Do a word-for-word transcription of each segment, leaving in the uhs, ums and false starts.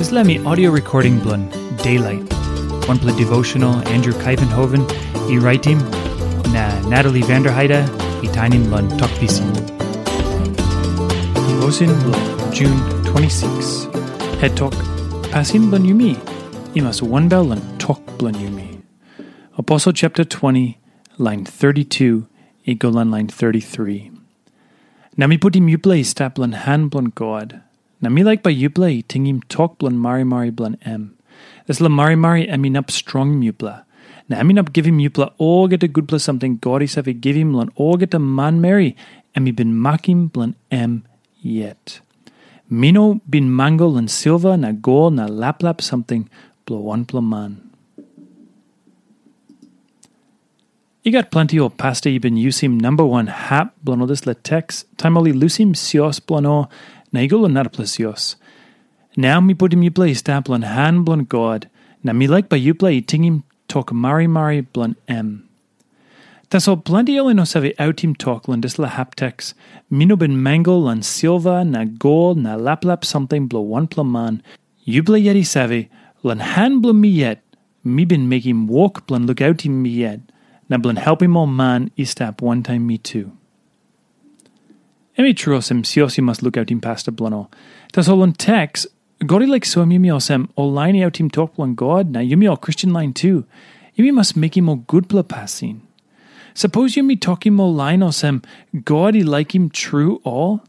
Dispela mi audio recording bilong Daylight, wanpela devotional Andrew Kaivenhoven i raitim, na Natalie Vanderheide i tainim long Tok Pisin. Devotion bilong June twenty-six. Het tok, pasin bilong yumi i mas wanbel long tok bilong yumi. Aposel chapter twenty, lain thirty-two i go long lain thirty-three. Na mi putim yupela i stap long han bilong God, na mi laik bai yupela i tingim tok bilong marimari bilong em. Dispela marimari em inap strongim yupela, na em inap givim yupela olgeta gutpela samting God i save givim long olgeta manmeri em i bin makim bilong em yet. Mi no bin mango long silva na gol na laplap samting bilong wanpela man. I gat planti ol pasta i bin yusim namba wan hap bilong ol dispela teks, taim ol i lusim sios bilong ol na i go long narapela sios. Nau mi putim yupela i stap long han bilong God, na mi laik bai yupela i tingim tok marimari bilong em. Tasol planti ol i no save autim tok long dispela hap teks, mi no bin mango long silva na gol na laplap samting bilong wanpela man. Yupela yet i save, long han bilong mi yet, mi bin mekim wok bilong lukautim mi yet, na bilong helpim ol man i stap wantaim mi tu. Em i tru olsem sios i mas lukautim pasta bilong ol. Tasol long teks, God i laik soim yumi olsem ol lain i autim tok bilong God na yumi ol Kristen lain tu, yumi mas mekim ol gutpela pasin. Sapos yumi tokim ol lain olsem God i laikim tru ol,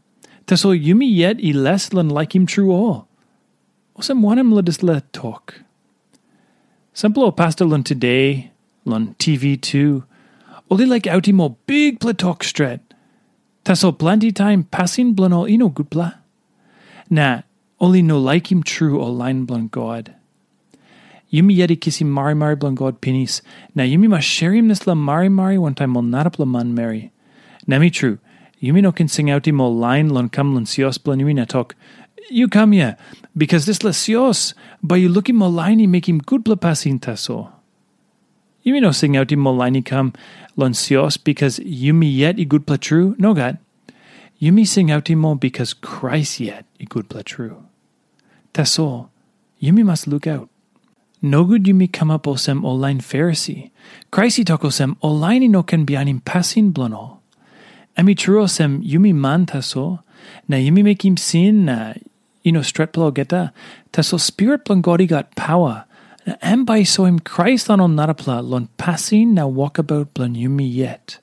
tasol yumi yet i les long laikim tru ol. Olsem wanem long dispela tok? Sampela ol pasta long today, long T V tu, ol i laik autim ol bikpela tok stret. Tasol planti taim pasin bilong ol i no gutpela. Na ol i no laikim tru ol lain bilong God. Yumi yet i kisim marimari bilong God pinis, na yumi mas sherim dispela marimari wantaim ol narapela manmeri. Na mi tru, yumi no ken singautim ol lain long kam long sios bilong yumi na tok, "Yu kam hia, bikas dispela sios bai yu lukim ol lain i mekim gutpela pasin tasol." Yumi no singautim ol lain i kam long sios bikas yumi yet i gutpela tru, nogat. Yumi singautim ol bikas Krais yet i gutpela tru. Tasol, yumi mas lukaut. Nogut yumi kamap olsem ol lain Farisi. Krais i tok olsem, ol lain i no ken bihainim pasin bilong ol. Em i tru olsem, yumi man tasol, na yumi mekim sin na i no stretpela olgeta, tasol Spirit bilong God i gat pawa, na em bai i soim Krais long ol narapela long pasin na wokabaut bilong yumi yet.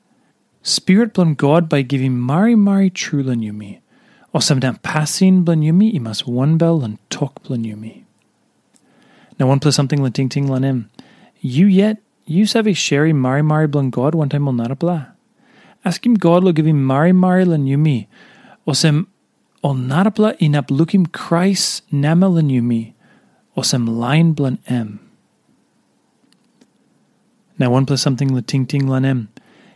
Spirit bilong God bai i givim marimari tru long yumi, olsem na pasin bilong yumi i mas wanbel long tok bilong yumi. Na wanpela samting long tingting long em, yu yet yu save sherim marimari bilong God wantaim ol narapela? Askim God long givim marimari long yumi, olsem ol narapela inap lukim Krais namel long yumi, olsem lain bilong em. Na wanpela samting long tingting long em,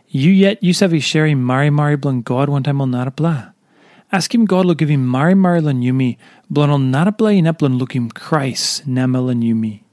yu yet yu save sherim marimari bilong God wantaim ol narapela? Askim God long givim marimari long yumi, bilong ol narapela inap long lukim Krais namel long yumi.